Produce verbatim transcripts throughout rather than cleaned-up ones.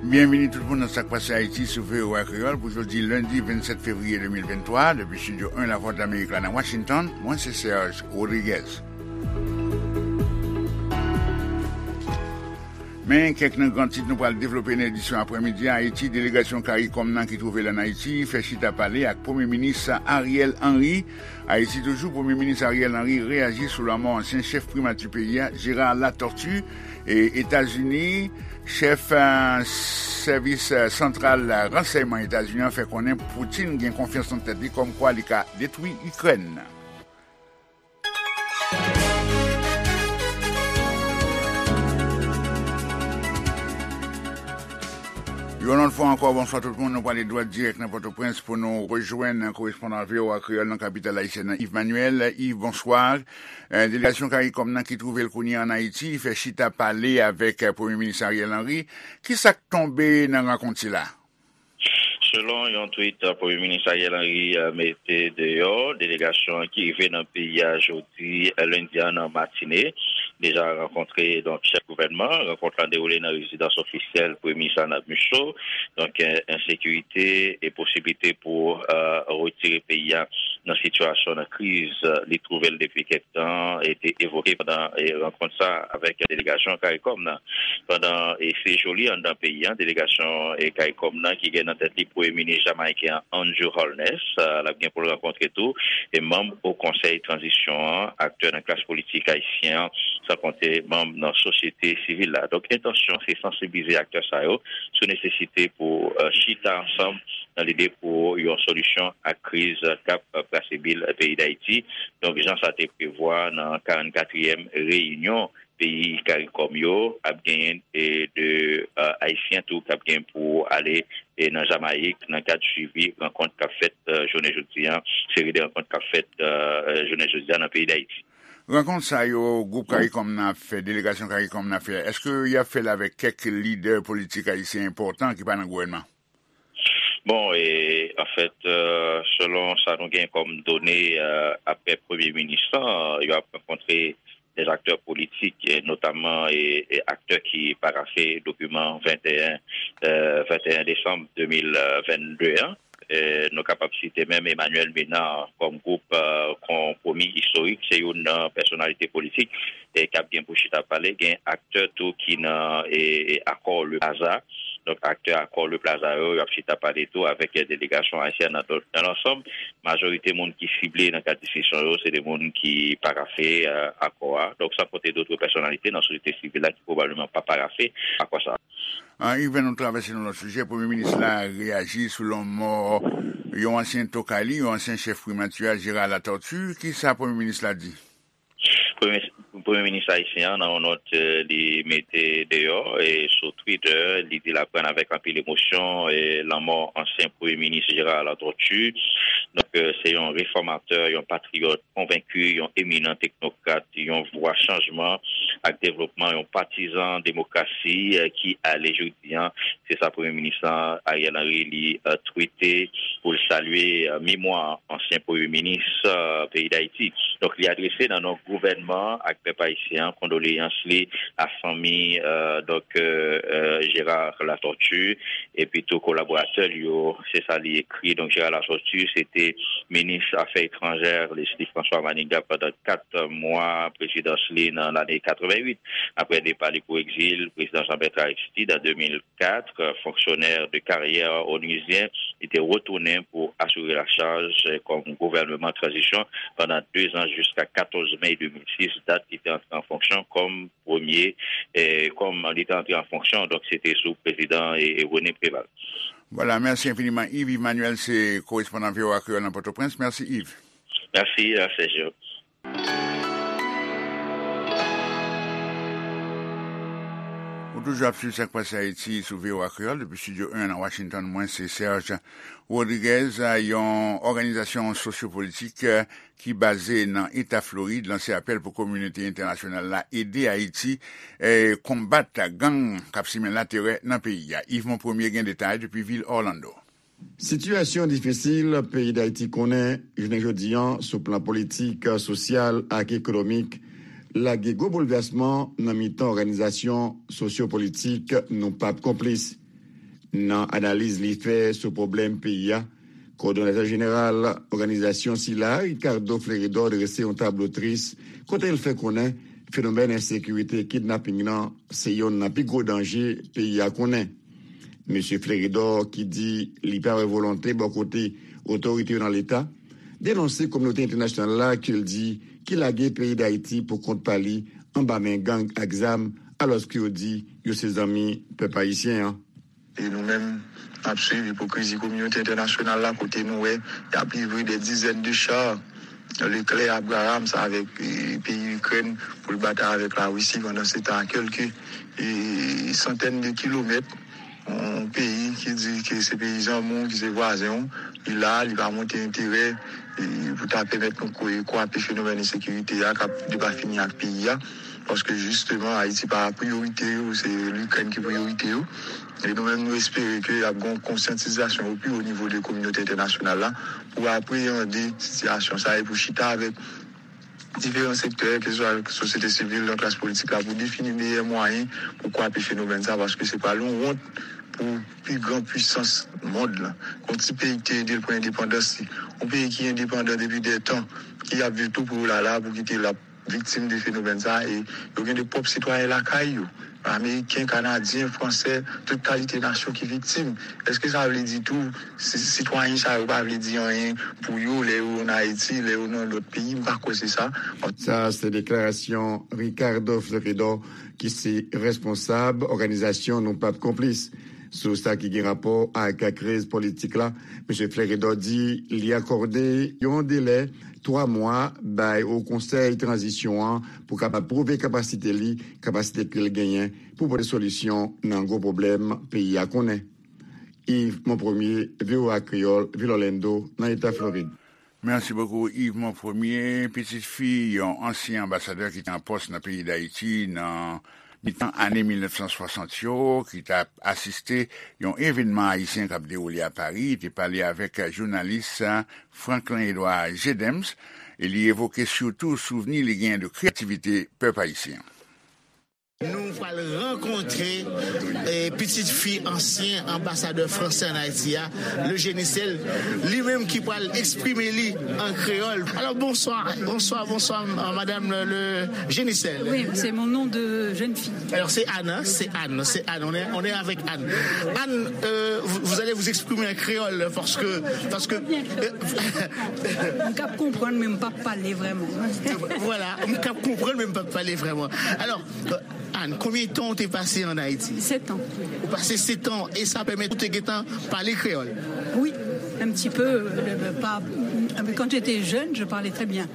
Byenvini tout moun nan Sa k Pase Ayiti sou V O A Kreyòl pou jodi lendi vennsèt fevriye de mil venntwa, depi Estidyo en Lavwadlamerik la nan Washington, mwen se Serge Rodriguez. Men kèk nan gran tit nou pral devlope nan edisyon aprèmidi a. Ayiti, delegasyon CARICOM nan ki twouve l ann Ayiti fè chita pale ak Premye Minis Ariel Henry. Ayiti toujou, Premye Minis Ariel Henry reyaji sou lanmò ansyen chèf primati peyi a, Gérard Latortue. E Etazini, chèf, eh, sèvis, eh, santral, eh, ransèyman Etazini an fè konnen Putin gen konfyans nan tèt li kòmkwa li ka detwi Ikrèn. Yon lòt fwa ankò, bonswa tout moun. Nou prale dwat dirèk nan Pòtoprens pou nou rejwenn korespondan V O A Kreyòl nan kapital ayisyèn nan, Yves Manuel. Yves, bonswa. Eh, delegasyon CARICOM nan ki twouve l kounye a ann Ayiti fè chita pale avèk, eh, Premye Minis Ariel Henry. Ki sa k tonbe nan rankont sila? Selon yon tweet, eh, Premye Minis Ariel Henry, eh, mete deyò, delegasyon an ki rive nan peyi a jodi, eh, lendi a nan matine, deja rankontre, donk, chèf gouvènman. Rankont lan dewoule nan rezidans ofisyèl Premye Minis Arnab Michaux. Donk, eh, ensekirite e posiblite pou, eh, retire peyi a nan sitiyasyon, nan kriz, eh, li twouve l depi kèk tan, e te evoke pandan, eh, rankont sa avèk delegasyon CARICOM nan. Pandan, eh, sejou li anndan peyi a, delegasyon, eh, CARICOM nan ki gen nan tèt li Premye Minis jamayiken an, Andrew Holness, eh, l ap gen pou l rankontre tou, e manm Wo Konsèy Tranzisyon an, aktè nan klas politik ayisyen an, san konte manm nan sosyete sivil la. Donk, entansyon se sansibilize aktè sa yo sou nesesite pou, eh, chita ansanm nan lide pou yon solisyon ak kriz k ap brase bil peyi Dayiti. Donk, jan sa te prevwa nan karannkatriyèm reyinyon peyi CARICOM yo, ap genyen, e, de, eh, Ayisyen tou k ap gen pou ale, e, nan Jamayik nan kad swivi rankont k ap fèt, eh, jounen jodi a, seri de rankont k ap fèt, eh, jounen jodi a nan peyi Dayiti. Rankont sa yo, gwoup CARICOM nan ap fè, delegasyon CARICOM nan ap fè, èske y ap fè l avèk kèk lidè politik ayisyen enpòtan ki pa nan gouvènman? Bon, e, anfèt, eh, selon sa nou gen kòm done, eh, aprè Premye Minis lan, yo ap rankontre dè aktè politik, eh, notamman, e, e aktè ki parafe dokiman venteyen, eh, venteyen desanm de mil vennde an. Eh, nou kapab site menm Emmanuel Ménard kòm gwoup, eh, konpwomi istorik. Se youn nan pèsonalite politik, eh, k ap gen pou chita pale. Gen aktè tou ki nan, eh, eh, akò Le Plaza. Donk, aktè akò Le Plaza yo, y ap chita pale tou avèk, eh, delegasyon ayisyèn nan. Donk, nan lansanm, majorite moun ki sible nan kad diskisyon yo, se de moun ki parafe, eh, akò a. Donk, san konte dòt pèsonalite nan sosyete sivil la ki pwobableman pa parafe akò sa a. Ah, Yves, nou travèse nan lòt sijè. Premye minis la reyaji sou lanmò yon ansyen tokay li, yon ansyen chèf primati a, Gérard Latortue. Ki sa premye minis la di? Premye, premye minis ayisyen an, nan yon nòt, eh, li mete deyò, eh, sou Twitter, li di l aprann avèk anpil emosyon, eh, lanmò ansyen premye minis Gérard Latortue. Donk, eh, se yon refòmatè, yon patriyòt konvenki, yon eminan teknokrat, yon vwa chanjman ak devlopman, yon patizan demokrasi, eh, ki ale jodi an. Se sa premye minis lan, Ariel Henry, li, eh, twite pou l salye, eh, memwa ansyen premye minis, eh, peyi Dayiti. Donk, li adrese nan non gouvènman ak pèp ayisyen an kondoleyans li a fanmi, eh, donk, eh, eh, Gérard Latortue, epi tou kolaboratè li yo, se sa li ekri. Donk, Gérard Latortue, se te minis afè etranjè Leslie François Manigat pandan kat mwa prezidans li nan lane katrevenwit. Aprè depa li pou egzil, prezidan Jean Bertrand Aristide, an de mil kat, fonksyonè de karyè onizyen, li te retounen pou asire lachaj kòm gouvènman tranzisyon pandan de zan jiska katòz me de mil sis, dat li te antre an fonksyon kòm premye, eh, kòm li te antre an fonksyon, donk se te sou prezidan, eh, René Préval. Vwala, mèsi enfiniman, Yves. Yves Manuel se korespondan V O A Kreyòl nan Pòtoprens. Mèsi, Yves. Mèsi, eh, Sergio. Ou toujou ap swiv Sa k Pase Ayiti sou V O A Kreyòl depi Estidyo en nan Washington. Mwen se Serge Rodriguez. Yon òganizasyon sosyopolitik, eh, ki baze nan Eta Florid lanse apèl pou kominote entènasyonal la ede Ayiti, eh, konbat gang k ap simen laterè nan peyi a. Yves Monpremier gen detay depi vil Orlando. Sitiyasyon difisil peyi Dayiti konnen jounen jodi an sou plan politik, sosyal ak ekonomik lage gwo boulvèsman nan mitan òganizasyon sosyopolitik nou p ap konplis. Nan analiz li fè sou pwoblèm peyi a, kowòdonatè jeneral òganizasyon sila, Ricardo Fleredor, drese yon tablo tris kote l fè konnen fenomèn ensekirite kidnaping nan se yonn nan pi gwo danje peyi a konnen. Mesye Fleredor, ki di li pa wè volonte bò kote otorite yo nan Leta, denonse kominote entènasyonal la ke l di ki lage peyi Dayiti pou kont pa li anba men gang ak zam, alòske yo di yo se zanmi pèp ayisyen an. E nou menm, n ap swiv ipokrizi kominote entènasyonal la, kote nou wè y ap livre dè dizèn de cha Leclerc Abrams avèk, e, peyi Ikrèn pou l batay avèk Larisi, pandan se tan, a kèlke, e, santèn de kilomèt, yon peyi ki di ke se peyi zanmi w, ki se vwazen w, li la, li pa montre enterè, e, pou ta pèmèt nou kwa-, kwape fenomèn ensekirite a k ap depafini ak peyi a. Paske jisteman, Ayiti pa priyorite yo, se Likrèn ki priyorite yo. E nou menm, nou espere ke y ap gen yon konsyantizasyon o pi wo nivo de kominote entènasyonal la pou apreyande sitiyasyon sa a e pou chita avèk diferan sektè, keseswa sosyete sivil, nan klas politik la, pou defini meyè mwayen pou kwape fenomèn sa, paske se pral yon wont pou pi gran pwisans mond lan. Yon ti peyi ki te ede l pran endepandans li, yon peyi ki endepandan depi dè tan, ki ap viv tou pou yo la la, pou kite l ap viktim de fenomèn sa, e yo gen de pwòp sitwayen lakay yo, ameriken, kanadyen, fransè, tout kalite nasyon ki viktim. Èske sa vle di tou si-, sitwayen sa yo pa vle di anyen pou yo lè yo ann Ayiti, lè yo nan lòt peyi? M pa kwè se sa. Sa se deklarasyon Ricardo Fleredor, ki se responsab òganizasyon Nou Pap Konplis. Sou sa ki gen rapò ak kriz politik la, Mesye Fleredor di li akòde yon delè twa mwa bay Wo Konsèy Tranzisyon an pou kapab pwouve kapasite li, kapasite ke l genyen pou pote solisyon nan gwo pwoblèm peyi a konnen. Yves Monpremier, V O A Kreyòl, Vil Orlando, nan Eta Florid. Merci beaucoup, Yves Monpremier. Pitit fi yon ansyen anbasadè ki te an pòs nan peyi Dayiti nan mitan ane mil nèf san swasant yo, ki t ap asiste yon evènman ayisyen k ap dewoule a Pari, te pale avèk jounalis Franklin Edouard Gedems, e li evoke sitou souvni li genyen de kreyativite pèp ayisyen. Nou pral rankontre, eh, pitit fi ansyen anbasadè fransè ann Ayiti a, le Genicel, li menm ki pral eksprime li an kreyòl. Alors, bonsoir, bonsoir, bonsoir, euh, madame le, le Genicel. Oui, c'est mon nom de jeune fille. Alors, c'est Anne, hein, c'est Anne, c'est Anne. On est, on est avec Anne. Anne, euh, vous, vous allez vous exprimer en créole parce que, parce que, euh, M k ap konprann, men m p ap pale vrèman. Voilà, m k ap konprann, men m p ap pale vrèman. Alors, euh, Anne, konbyen tan ou te pase ann Ayiti? Sept ans. Ou pase sèt an, e sa pèmèt ou te gentan pale kreyòl? Oui, un petit peu, euh, pas, quand j'étais jeune, je parlais très bien.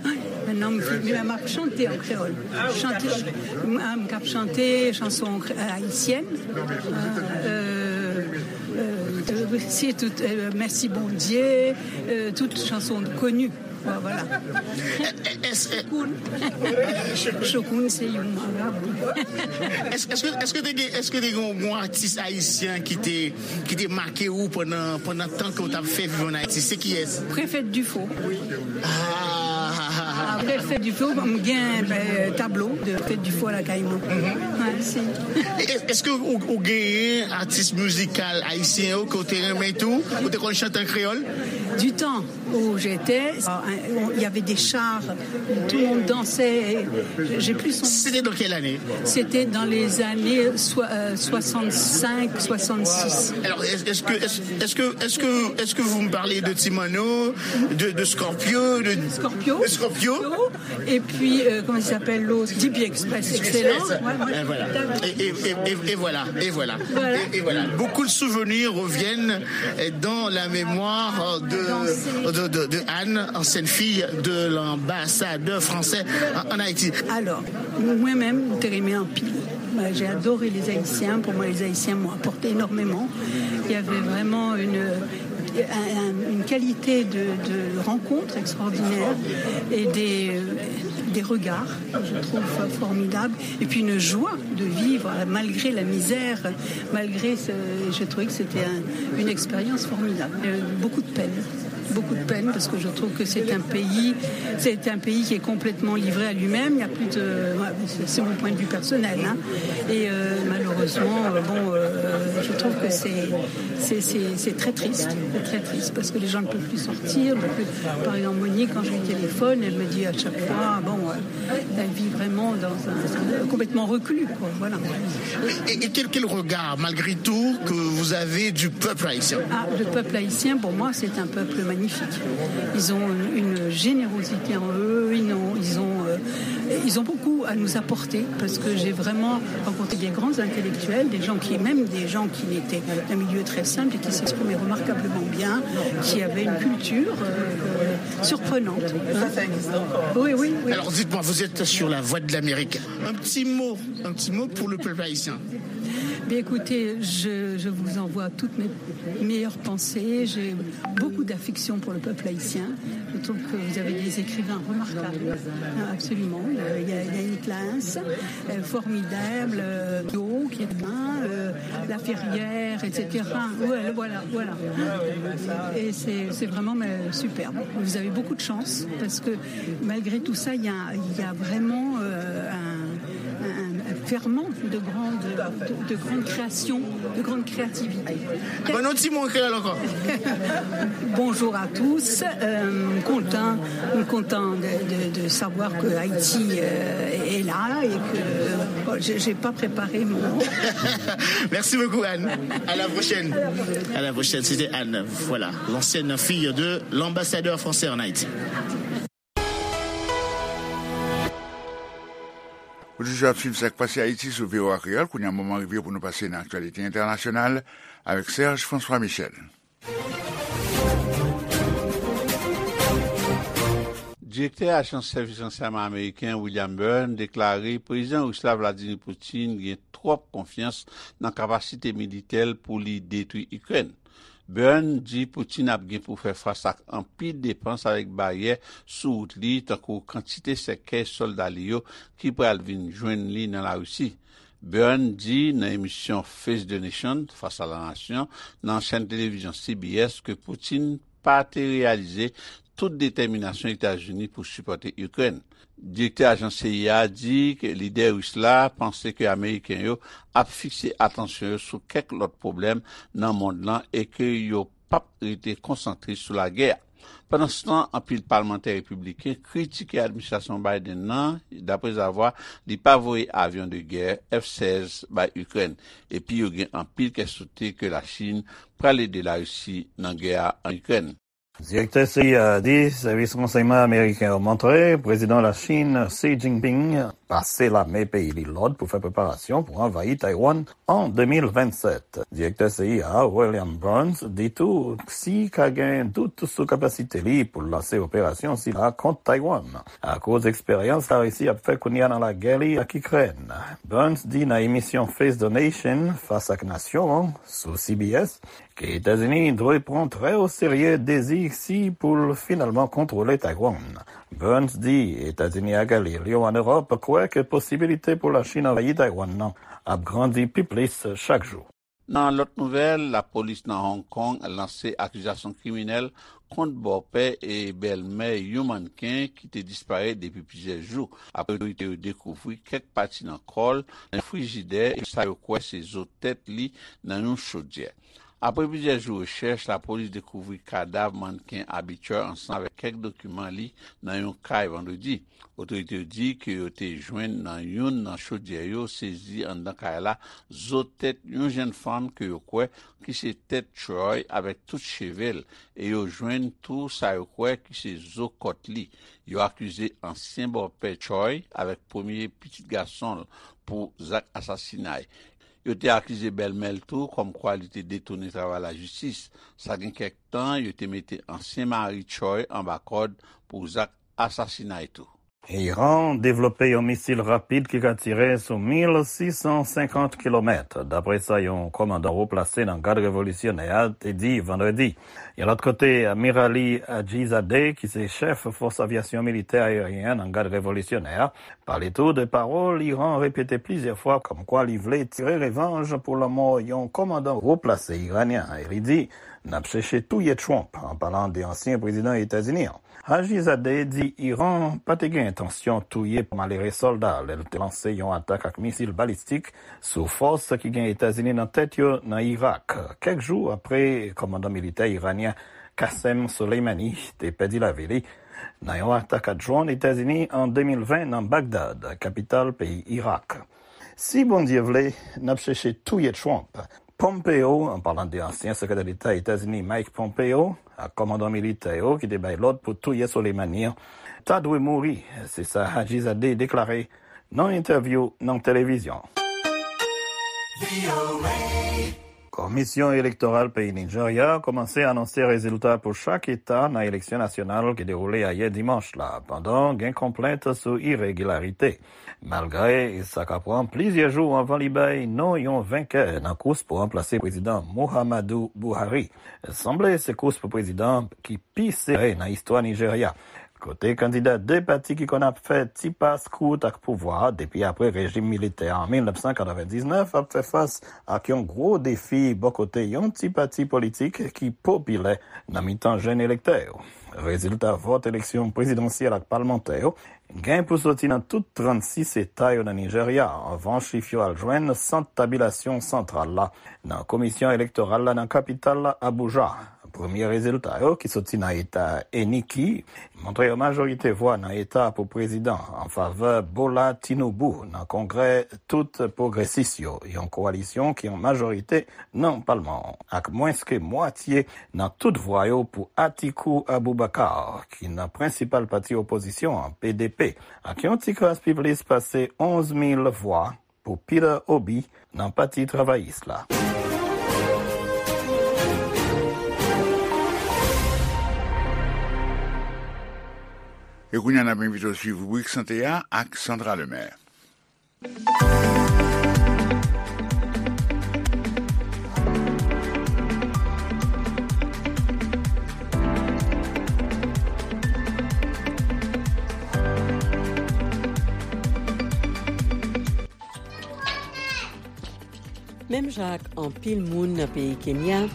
Maintenant, m, m ap chante en créole. Chante, m, m k ap chante chanson cré-, euh, haïtienne. Euh, euh, c'est tout, euh, Merci Bondye, euh, tout chanson connue. Voilà. Chokoun. Chokoun se yon marabou. Èske, èske, èske te gen, èske te gen yon, yon atis ayisyen ki te, ki te make ou pandan, pandan tan ke w t ap fè viv ann Ayiti? Se kiyès? Préfet Dufaux. Ah. Préfet Dufaux, m gen, euh, tablo de Préfet Dufaux lakay mwen. Ouais, si. Èske ou, ou genyen atis mizikal ayisyen yo ke w te renmen tou? Ou te konn chante an kreyòl? Du temps où j'étais, euh, il y avait des chars, tout le monde dansait. J'ai plus son... C'était dans quelle année? C'était dans les années soi-, euh, soixante-cinq, soixante-six. Alors, est-ce, est-ce que, est-ce, est-ce que, est-ce que, est-ce que vous me parlez de Ti Manno, de, de Scorpio, de, Scorpio. De Scorpio? Et puis, euh, comment il s'appelle l'autre? D P Express, excellent. Ouais, ouais. Et voilà. Et, et, et, et, et voilà, et voilà. Voilà. Et, et voilà. Beaucoup de souvenirs reviennent, euh, dans la mémoire de, de, de, de Anne, ancienne fille de l'ambassadeur français en, en Haïti. Alors, mwen menm, m te renmen anpil. Moi, j'ai adoré les Haïtiens. Pour moi, les Haïtiens m'ont apporté énormément. Il y avait vraiment une, un, un, une qualité de, de rencontre extraordinaire et des, euh, des regards, je trouve, formidables. Et puis une joie de vivre malgré la misère, malgré ce, je trouvais que c'était un, une expérience formidable. Euh, beaucoup de peine. Beaucoup de peine parce que je trouve que c'est un pays, c'est un pays qui est complètement livré à lui-même. Il y a plus de, c'est mon point de vue personnel, hein. Et euh, malheureusement, euh, bon, euh, je trouve que c'est, c'est, c'est, c'est très triste, c'est très triste parce que les gens ne peuvent plus sortir. Donc, euh, par exemple, Monique, quand je lui téléphone, elle me dit à chaque fois, bon, euh, elle vit vraiment dans un, un- complètement reclus, quoi. Voilà. Et, et quel, quel regard, malgré tout, que vous avez du peuple haïtien? Ah, le peuple haïtien, pour moi, c'est un peuple magnifique. Ils ont une, une générosité en eux, ils ont, ils ont, euh, ils ont beaucoup à nous apporter, parce que j'ai vraiment rencontré des grands intellectuels, des gens qui, même des gens qui étaient d'un milieu très simple et qui s'exprimaient remarquablement bien, qui avaient une culture euh, euh, surprenante. Ça, ça existe encore. Oui, oui, oui. Alors dites-moi, vous êtes sur la Voix de l'Amérique. Un petit mot, un petit mot pour le peuple haïtien. Bien, écoutez, je, je vous envoie toutes mes meilleures pensées. J'ai beaucoup d'affection pour le peuple haïtien. Je trouve que vous avez des écrivains remarquables, hein, absolument. Euh, Il y a, il y a une classe euh, formidable, euh, Yo, qui est bien, euh, La Ferrière, et cetera. Ouais, voilà, voilà. Et c'est c'est vraiment euh, superbe. Vous avez beaucoup de chance parce que malgré tout ça, il y a, il y a vraiment euh, un, un- un ferment de grande, de, de grande création, de grande créativité. Bon, nou ti moun kreyòl ankò. Bonjour à tous. Euh, content, content de, de- de savoir que Haïti euh, est là et que bon, j'ai j'ai pas préparé mon. Merci beaucoup, Anne. À la prochaine. À la prochaine. C'était Anne, voilà, l'ancienne fille de l'ambassadeur français en Haïti. Ou toujou ap swiv sa k pase Ayiti sou V O A Kreyòl. Kounye a, moman rive pou nou pase nan aktyalite entènasyonal avèk Serge François Michel. Direktè Ajans Sèvis Ransèyman Ameriken William Burns deklare Prezidan Ris la Vladimir Putin gen twòp konfyans nan kapasite militè l pou li detwi Ikrèn. Burns di Putin ap gen pou fè fas ak anpil depans avèk baryè sou wout li, tankou kantite sèkèy sòlda li yo ki pral vin jwenn li nan Larisi. Burns di nan emisyon Face the Nation, Fas a la Nasyon, nan chèn televizyon C B S ke Putin pa te reyalize tout detèminasyon Etazini pou sipòte Ikrèn. Direktè ajans C I A a di ke lidè ris la panse ke Ameriken yo ap fikse atansyon yo sou kèk lòt pwoblèm nan mond lan e ke yo p ap rete konsantre sou lagè a. Pandanstan, anpil palmantè repibliken kritike administrasyon Biden nan, daprezavwa li pa voye avyon de gè F sèz bay Ikrèn, epi yo gen anpil kè sote ke Lachin pral ede Larisi nan gè a an Ikrèn. Direktè C I A a di sèvis ransèyman ameriken yo montre prezidan Lachin Xi Jinping pase lame peyi li lòd pou fè preparasyon pou anvayi Taiwan an de mil vennsèt. Direktè C I A a, William Burns, di tou Xi ka gen dout sou kapasite li pou l lanse operasyon sila kont Taiwan, akoz eksperyans Larisi ap fè kounye a nan lagè li ak Ikrèn. Burns di nan emisyon Face the Nation, Fas ak Nasyon an, sou C B S, ke Etazini dwe pran trè o serye dezi Xi pou l finalman kontwole Taiwan. Burns di Etazini ak alye l yo an Ewòp kwè ke posibilite pou Lachin anvayi Taiwan nan ap grandi pi plis chak jou. Nan lòt nouvèl, lapolis nan Hong Kong lanse akizasyon kriminèl kont bòpè e bèlmè yon mannken ki te disparèt depi plizyè jou, apre otorite yo dekouvri kèk pati nan kò l nan yon frijidè e sa yo kwè se zo tèt li nan yon chodyè. Apre plizyè jou rechèch, lapolis dekouvri kadav mannken Abi Choi ansanm avèk kèk dokiman li nan yon kay vandredi. Otorite yo di ke yo te jwenn nan youn nan chodyè yo sezi anndan kay la zo tèt yon jèn fanm ke yo kwè ki se tèt Choi avèk tout cheve l, e yo jwenn tou sa yo kwè ki se zo kòt li. Yo akize ansyen bòpè Choi avèk premye pitit gason l pou zak asasinay. Yo te akize bèlmè l tou kòmkwa li te detounen travay lajistis. Sa gen kèk tan, yo te mete ansyen mari Choi anba kòd pou zak asasinay tou. Iran devlope yon misil rapid ki ka tire sou mil sis san senkant kilomèt, dapre sa yon kòmandan wo plase nan Gad Revolisyonè a te di vandredi. Yon lòt kote, Amirali Ajizadeh, ki se chèf fòs avyasyon militè ayeryen nan Gad Revolisyonè a, pale tou de pawòl Iran repete plizyè fwa kòmkwa li vle tire revanj pou lanmò yon kòmandan wo plase iranyen, e li di N ap chèche touye Trump, an palan de ansyen prezidan Etazini an. Hajizadeh di Iran pa te gen entansyon touye malere sòlda lè l te lanse yon atak ak misil balistik sou fòs ki gen Etazini nan tèt yo nan Irak, kèk jou apre kòmandan militè iranyen Qasem Soleimani te pèdi lavi li nan yon atak a dwòn Etazini an de mil ven nan Bagdad, kapital peyi Irak. Si Bondye vle, n ap chèche touye Trump. Pompeo, an palan de ansyen sekretè deta Etazini Mike Pompeo, ak kòmandan militè yo ki te bay lòd pou touye Soleimani an, ta dwe mouri, se sa Hajizadeh deklare nan entèvyou nan televizyon. Komisyon elektoral peyi Nijerya kòmanse anonse rezilta pou chak eta nan eleksyon nasyonal ki dewoule ayè dimanch la, pandan gen konplent sou iregilarite. Malgre sa ka pran plizyè jou anvan li bay non yon venkè nan kous pou ranplase prezidan Muhammadu Buhari, sanble se kous pou prezidan ki pi sere nan istwa Nijerya, kote kandida de pati ki konn ap fè ti pas kout ak pouvwa depi apre rejim militè an mil nèf san katrevendiznèf ap fè fas ak yon gwo defi bò kote yon ti pati politik ki popilè nan mitan jèn elektè yo. Rezilta vòt eleksyon prezidansyèl ak palmantè yo gen pou soti nan tout trannsis eta yo nan Nijerya, anvan chif yo al jwenn sant tabilasyon santral la nan komisyon elektoral la nan kapital la, Abuja. Premye rezilta yo, ki soti nan eta Eniki, montre yon majorite vwa nan eta pou prezidan an favè Bola Tinubu nan kongrè tout pwogresis yo, yon kowalisyon ki an majorite nan palman an, ak mwens ke mwatye nan tout vwa yo pou Atiku Abubakar, ki nan prensipal pati opozisyon an, P D P, ak yon ti kras pi plis pase onz mil vwa pou Peter Obi nan Pati Travayis la. E kounye a, n ap envite w swiv ribrik sante a ak Sandra Lemaire. Menm jan ak anpil moun nan peyi Kenya,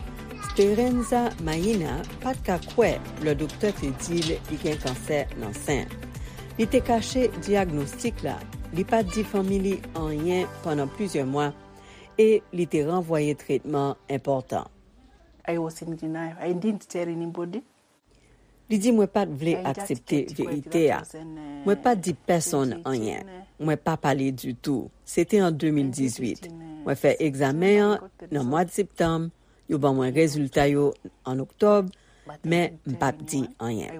Speranza Maina pa t ka kwè lè doktè te di l li gen kansè nan sen. Li te kache dyagnostik la, li pa t di fanmi li anyen pandan plizyè mwa, e li te ranvwaye tretman enpòtan. I was in denial. I didn't tell anybody. Li di, mwen pa t vle aksepte verite a. Mwen pa t di pèsonn anyen. Mwen pa pale ditou. Se te an de mil dizuit. Mwen fè egzamen an nan mwa septanm. Yo ban mwen rezilta yo an oktòb, men m pa t di anyen.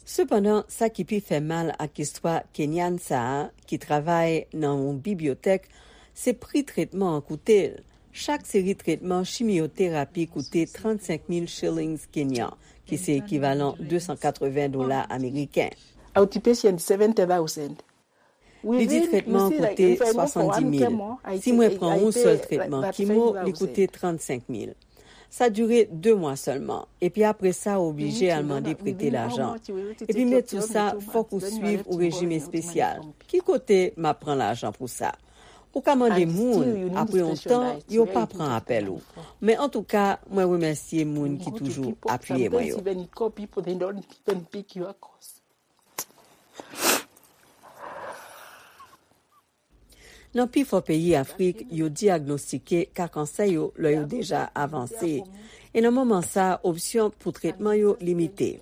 Sepandan, sa ki pi fè mal ak istwa Kenyan sa a, ki travay nan yon bibliyotèk, se pri tretman an koute l. Chak seri tretman chimyoterapi koute trannsenk mil shillings kenyan, ki se ekivalan de san katreven dola ameriken. Outpatient, seventy thousand. Li di tretman an koute swasanndis mil. Si mwen pran yon sèl tretman kimo, li koute trannsenk mil. Sa dire de mwa sèlman, epi apre sa, ou oblije al mande prete lajan. Epi met sou sa, fòk ou swiv ou rejim espesyal. Ki kote m ap pran lajan pou sa? Ou ka mande moun, apre yon tan, yo pa pran apèl ou. Men antouka, mwen remèsye moun ki toujou apiye mwen yo. Nan pifò peyi Afrik, yo dyagnostike ka kansè yo lè yo deja avanse. E nan moman sa a, opsyon pou tretman yo limite.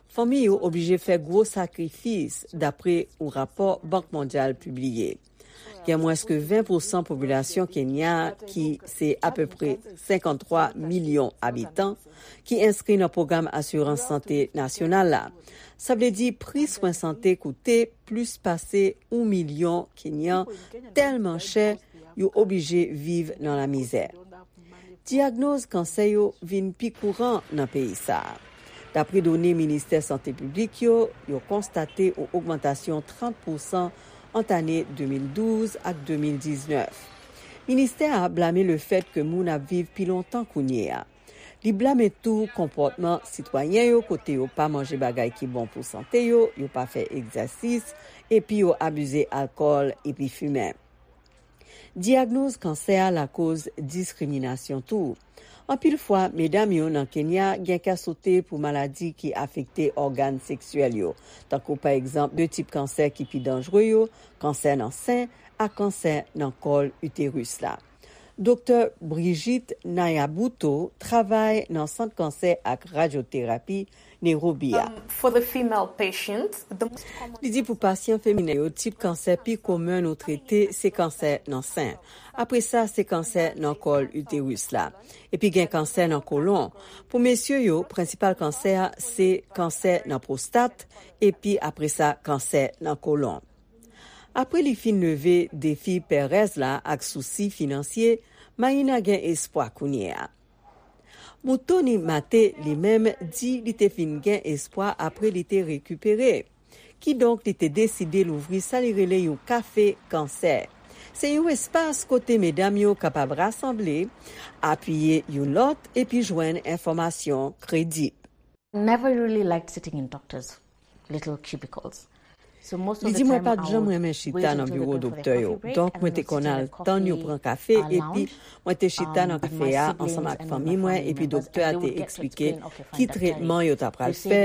Fanmi yo oblije fè gwo sakrifis, dapre yon rapò Bank Mondyal pibliye. Gen mwens ke ven pousan popilasyon Kenya, ki se apepre senkanntwa milyon abitan, ki enskri nan pwogram asirans sante nasyonal la. Sa vle di pri swen sante koute plis pase yon milyon Kenyan tèlman chè yo oblije viv nan lamizè. Dyagnoz kansè yo vin pi kouran nan peyi sa a. Dapre done Ministè Sante Piblik yo, yo konstate yon ogmantasyon trant pousan ant ane de mil douz ak de mil diznèf. Ministè a blame lefèt ke moun ap viv pi lontan kounye a. Li blame tou konpòtman sitwayen yo kote yo pa manje bagay ki bon pou sante yo, yo pa fè egzèsis, epi yo abize alkòl epi fimen. Dyagnoz kansè a lakoz diskriminasyon tou. Anpil fwa, medam yo nan Kenya gen kè sote pou maladi ki afekte ògàn seksyèl yo, tankou pa egzanp de tip kansè ki pi danjre yo, kansè nan sen ak kansè nan kòl iteris la. Doktè Brigitte Nayabuto travay nan Sant Kansè ak Radyoterapi Nairobi a. Um, for the female patient, the most common Li di pou pasyan feminen yo, tip kansè pi komen nou trete se kansè nan sen. Apre sa, se kansè nan kòl iteris la. Epi gen kansè nan kolon. Pou mesye yo, prensipal kansè a se kansè nan pwostat, epi apre sa, kansè nan kolon. Apre li fin leve defi pèrèz la ak sousi finansye, Mayina gen espwa kounye a. Mutoni Mate li menm di li te fin gen espwa apre li te rekipere. Kidonk, li te deside louvri sa li rele yon kafe kansè. Se yon espas kote medam yo kapab rasanble, apiye youn lòt epi jwenn enfòmasyon kredib. Never really liked sitting in doctors' little cubicles. Li di, mwen pa t janm renmen chita nan biwo doktè yo. Donk, mwen te konn al tann yo pran kafe, epi mwen te chita nan kafe a ansanm ak fanmi mwen, epi doktè a te eksplike ki tretman yo ta pral fè,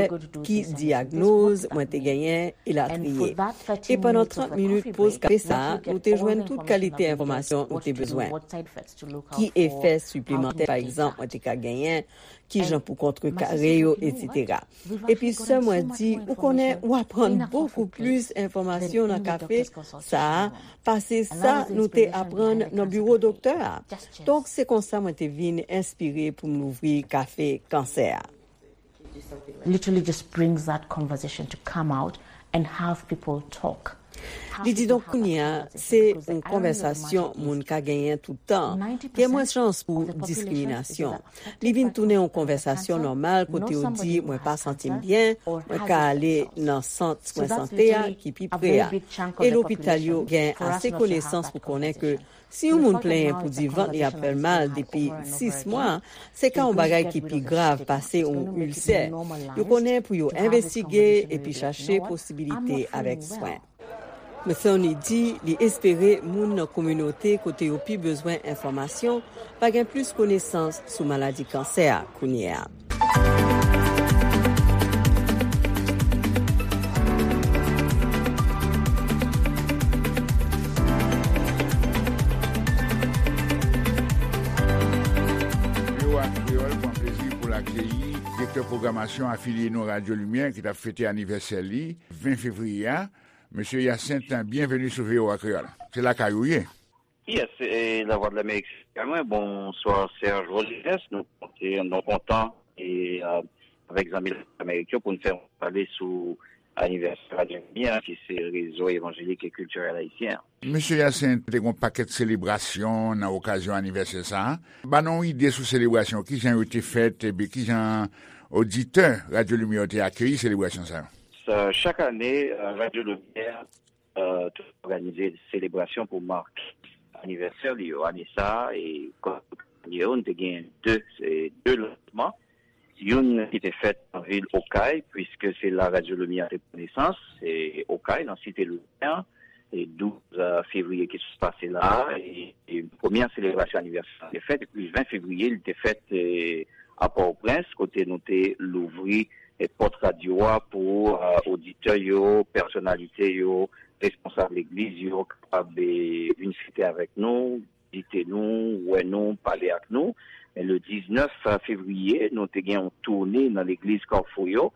ki dyagnoz mwen te genyen, elatriye. E pandan trant minit poz kafe sa a, nou te jwenn tout kalite enfòmasyon nou te bezwen. Ki efè siplemantè, pa egzanp, mwen te ka genyen, kijan pou kontrekare yo, etsetera. Epi sè mwen di, ou konnen, w aprann bokou plis enfòmasyon nan kafe sa a pase sa nou te aprann nan biwo doktè a. Donk, se konsa mwen te vin enspire pou m louvri kafe kansè a. Literally just brings that conversation to come out and have people talk. Li di, donk, kounye a, se yon konvèsasyon moun ka genyen tout tan. Gen mwens chans pou diskriminasyon. Li vin tounen yon konvèsasyon nòmal kote yo di, mwen pa santi m byen, mwen ka ale nan sant swen sante a ki pi pre a. E lopital yo gen ase konesans pou konnen ke si yon moun plenyen pou di vant li ap fè l mal depi sis mwa, se ka yon bagay ki pi grav pase yon ilsè. Yo konnen pou yo envestige epi chache posibilite avèk swen. Metheny di li espere moun nan kominote kote yo pi bezwen enfòmasyon va gen plis konesans sou maladi kansè a kounye a. V O A Kreyòl pran plezi pou l akeyi direktè pwogramasyon afilye nou Radyo Limyè ki t ap fete anivèsè li ven fevriye a. Mesye Hyacinthe, byenveni sou V O A Kreyòl. Se lakay ou ye. Yes, e Lavwadlamerik se lakay mwen. Bonswa Serge Rodriguez. Nou konte, nou kontan e, euh, avèk zanmi Lavwadlamerik yo pou n fè yon pale sou anivèsè Radyo Limyè, ki se rezo evanjelik e kiltirèl ayisyen an. Mesye Hyacinthe, te gen yon pakèt selebrasyon nan okazyon anivèsè sa a. Ban nou yon ide sou selebrasyon, kijan yo te fèt, epi kijan oditè Radyo Limyè yo te akeyi selebrasyon sa yo? Sa, chak ane, euh, Radyo Limyè, euh, toujou òganize selebrasyon pou make anivèsè li yo. Ane sa a, e kòm ane yo, nou te gen de, se de lansman. Youn ki te fèt nan vil Okay, puiske se la Radyo Limyè te pran nesans, se Okay, nan Site Limyè, e douz fevriye ki sot pase la a, e, e premyè selebrasyon anivèsè a te fèt, epi ven fevriye, li te fèt, e, a Pòtoprens, kote nou te louvri, e, pòt radyo a pou, e, oditè yo, pèsonalite yo, responsab legliz yo kapab, e, vin fete avèk nou, vizite nou, wè nou, pale ak nou. Men le diznèf fevriye, nou te gen yon toune nan legliz Kafou yo,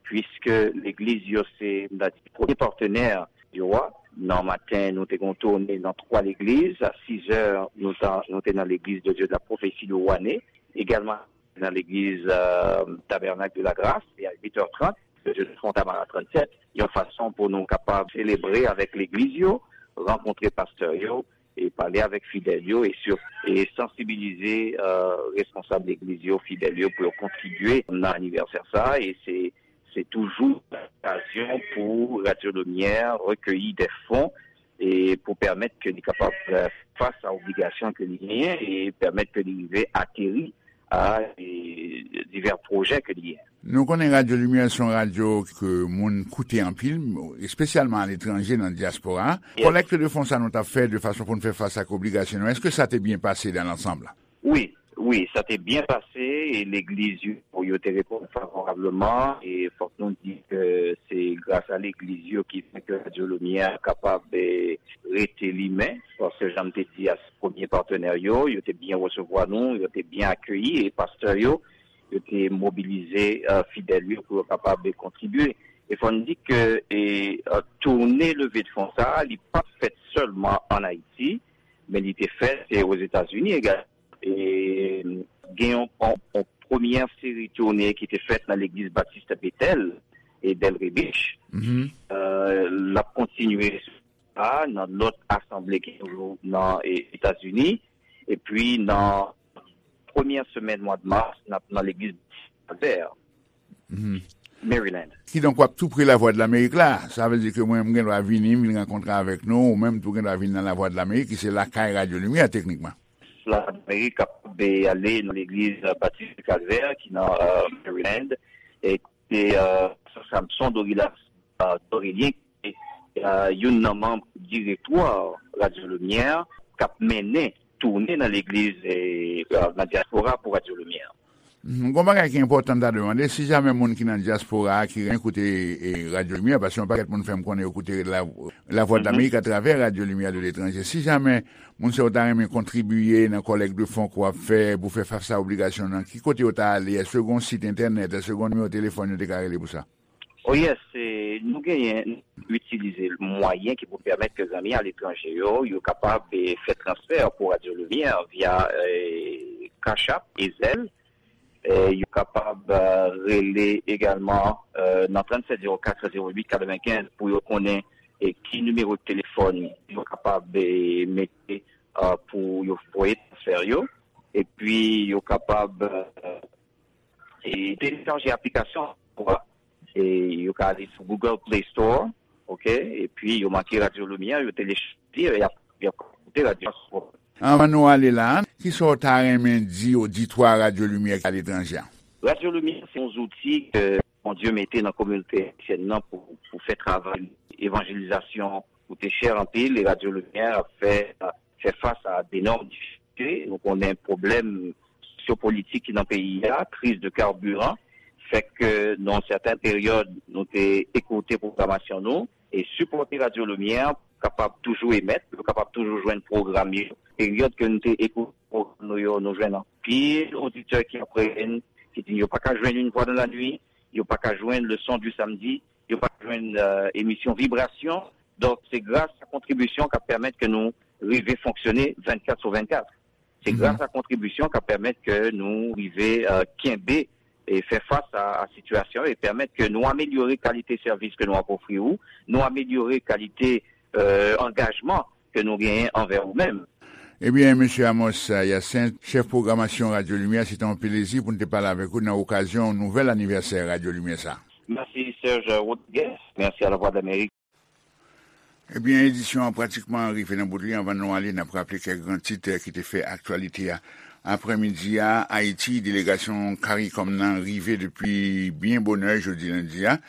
puiske legliz yo se, m ta di, premye patnè yo a. Nan maten, nou te gen yon toune nan twa legliz. A sizè, nou ta, nou te nan legliz de Dieu de la Prophétie de Wane. Egalman, nan legliz, euh, Tabernacle de la Grâce, e a uit è trant, de Dieu de Fontamara trannsèt, yon fason pou nou kapab selebre avèk legliz yo, rankontre pastè yo, e pale avèk fidèl yo, e sir-, e sansibilize, euh, responsab legliz yo, fidèl yo, pou yo kontribye nan anivèsè sa a, e se, se toujou okazyon pou Radyo Limyè rekeyi de fon, e pou pèmèt ke li kapab, euh, fè fas a obligasyon ke li genyen, e pèmèt ke li rive ateri a, e divè pwojè ke li genyen. Nou konnen Radyo Limyè se yon radyo ke moun koute anpil, espesyalman aletranje, nan dyaspora. Yes. Kòlèk de fon sa nou t ap fè de fason pou n fè fas ak obligasyon nou, èske sa te byen pase dan lansanm? Wi, wi, sa te byen pase, e legliz yo, yo te reponn favorableman, e fòk nou di ke se gras a legliz yo ki fè ke Radyo Limyè kapab, e, rete limen, paske jan m te di a, se premye patnè yo, yo te byen resevwa nou, yo te byen akeyi, e pastè yo, yo te mobilize, e, fidèl yo pou yo kapab kontribye. E fò n di ke, e, e, toune leve de fon sa a, li pa t fèt sèlman ann Ayiti, men li te fèt, e, Ozetazini egalman. E, gen yon, yon, yon premyè seri toune ki te fèt nan legliz Batis Betèl e Delray Beach. Mhm. E, l ap kontinye a, nan lòt asanble ki toujou nan, e, Etazini. Epi nan premyè semèn mwa de mas, n ap nan legliz Kalvè, Mhm. Maryland. Kidonk, w ap tou pre Lavwadlamerik la. Sa vle di ke mwen, m gen dwa vini, m vin rankontre avèk nou, ou menm tou gen dwa vin nan Lavwadlamerik, ki se lakay Radyo Limyè, teknikman. Lavwadlamerik kapab ale nan legliz, e, Batis Kalvè, ki nan, e, Maryland, e kote, e, Samson Dorilas, e, Dorelien, e, youn nan manm direktwa Radyo Limyè k ap mennen toune nan legliz, e, e, nan dyaspora pou Radyo Limyè. Mhm. Gon bagay ki enpòtan m ta demande, si jamè moun ki nan dyaspora a ki renmen koute, e, Radyo Limyè, paske yon pakèt moun fè m konnen yo koute La, Lavwadlamerik atravè Radyo Limyè de Letranje. Si jamè moun sa yo ta renmen kontribiye nan kòlèk de fon ke w ap fè pou fè fas a obligasyon nan, ki kote yo ta ale? Èske gon sit entènèt? Èske gon nimewo telefòn yo te ka rele pou sa? Oh yes, e, nou genyen, nou itilize mwayen ki pou pèmèt ke zanmi aletranje yo, yo kapab, e, fè transfè pou Radyo Limyè via, e, Cash App e Zelle. E, yo kapab, e, rele egalman, e, nan tranntsèt zewo kat zewo uit katrevenkenz pou yo konnen, e, ki nimewo telefòn yo kapab, e, mete, e, pou yo voye transfè yo. Epi yo kapab, e, e telechaje aplikasyon, e yo ka ale sou Google Play Store, oke, epi yo make Radyo Limyè, yo telechaje, e y ap, y ap koute radyo a sou. Anvan nou ale la, kisa w ta renmen di oditwa Radyo Limyè ki aletranje a? Radyo Limyè se yon zouti ke Bondye mete nan kominote ayisyèn nan pou, pou fè travay evanjelizasyon koute chè anpil, e Radyo Limyè ap fè, fè fas a denòm difikilte. Nou konnen pwoblèm sosyopolitik ki nan peyi a, kriz de carburant, fè ke nan yon sèten peryòd, nou te ekoute pwogramasyon nou, e sipòte Radyo Limyè, kapab toujou emèt, yo kapab toujou jwenn pwogram yo. Peryòd ke nou te ekoute pwogram nou yo, nou jwenn anpil oditè ki ap rele n, ki di yo pa ka jwenn Une Voix dans la nuit, yo pa ka jwenn Le Son du Samedi, yo pa ka jwenn, e, emisyon Vibrasyon. Donk, se gras a kontribisyon k ap pèmèt ke nou rive fonksyone vennkat sou vennkat. Se Mhm. gras a kontribisyon k ap pèmèt ke nou rive, e, kenbe e fè fas a, a sitiyasyon e pèmèt ke nou amelyore kalite sèvis ke nou ap ofri ou, nou amelyore kalite, e, angajman ke nou genyen anvè ou menm. Ebyen, Mesye Amos Hyacinthe, chèf pwogramasyon Radyo Limyè, se te yon plezi pou n te pale avèk ou nan okazyon nouvèl anivèsè Radyo Limyè sa. Mèsi, Serge Rodriguez. Mèsi a Lavwadlamerik. Ebyen, edisyon an pratikman rive nan bout li. Anvan nou ale, n ap raple kèk gran tit, eh, ki te fè aktyalite a. Aprèmidi a, Ayiti, delegasyon CARICOM nan rive depi byen bonè jodi lendi a.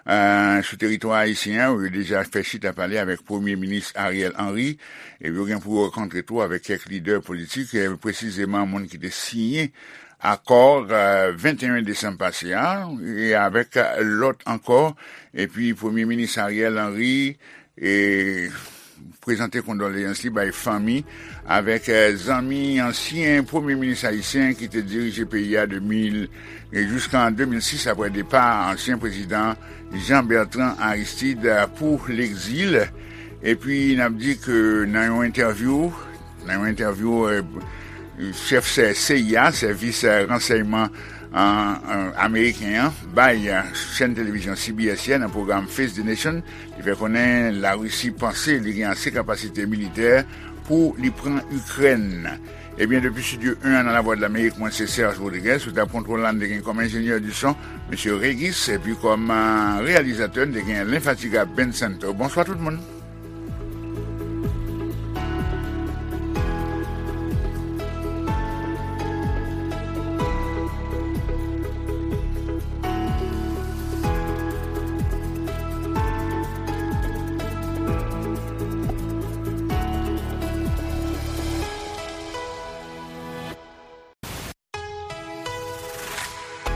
Eh, sou teritwa ayisyen an, yo deja fè chita pale avèk Premye Minis Ariel Henry, epi yo gen pou yo rankontre tou avèk kèk lidè politik, eh, presizeman moun ki te siyen akò, eh, venteyen desanm pase a, e avèk lòt ankò. Epi Premye Minis Ariel Henry, e, prezante kondoleyans li bay fanmi avèk, eh, zanmi ansyen Premye Minis ayisyen ki te dirije peyi a de mil, e jiska an de mil sis, apre depa ansyen prezidan Jean Bertrand Aristide, eh, pou legzil. Epi n ap di ke nan yon entèvyou, nan yon entèvyou, eh, chèf sè-, C I A, sèvis, eh, ransèyman, eh, eh, ameriken an, bay, eh, chèn televizyon C B S yè nan pwogram Face the Nation, li fè konnen Larisi panse li gen ase kapasite militè pou li pran Ikrèn. Ebyen, depi Estidyo en an nan Lavwadlamerik, mwen se Serge Rodriguez, sou tab kontwòl la, n te gen kòm enjenyè di son, mesye Régis, epi kòm, eh, reyalizatè, n te gen lenfatigab Ben Santo. Bonswa tout moun.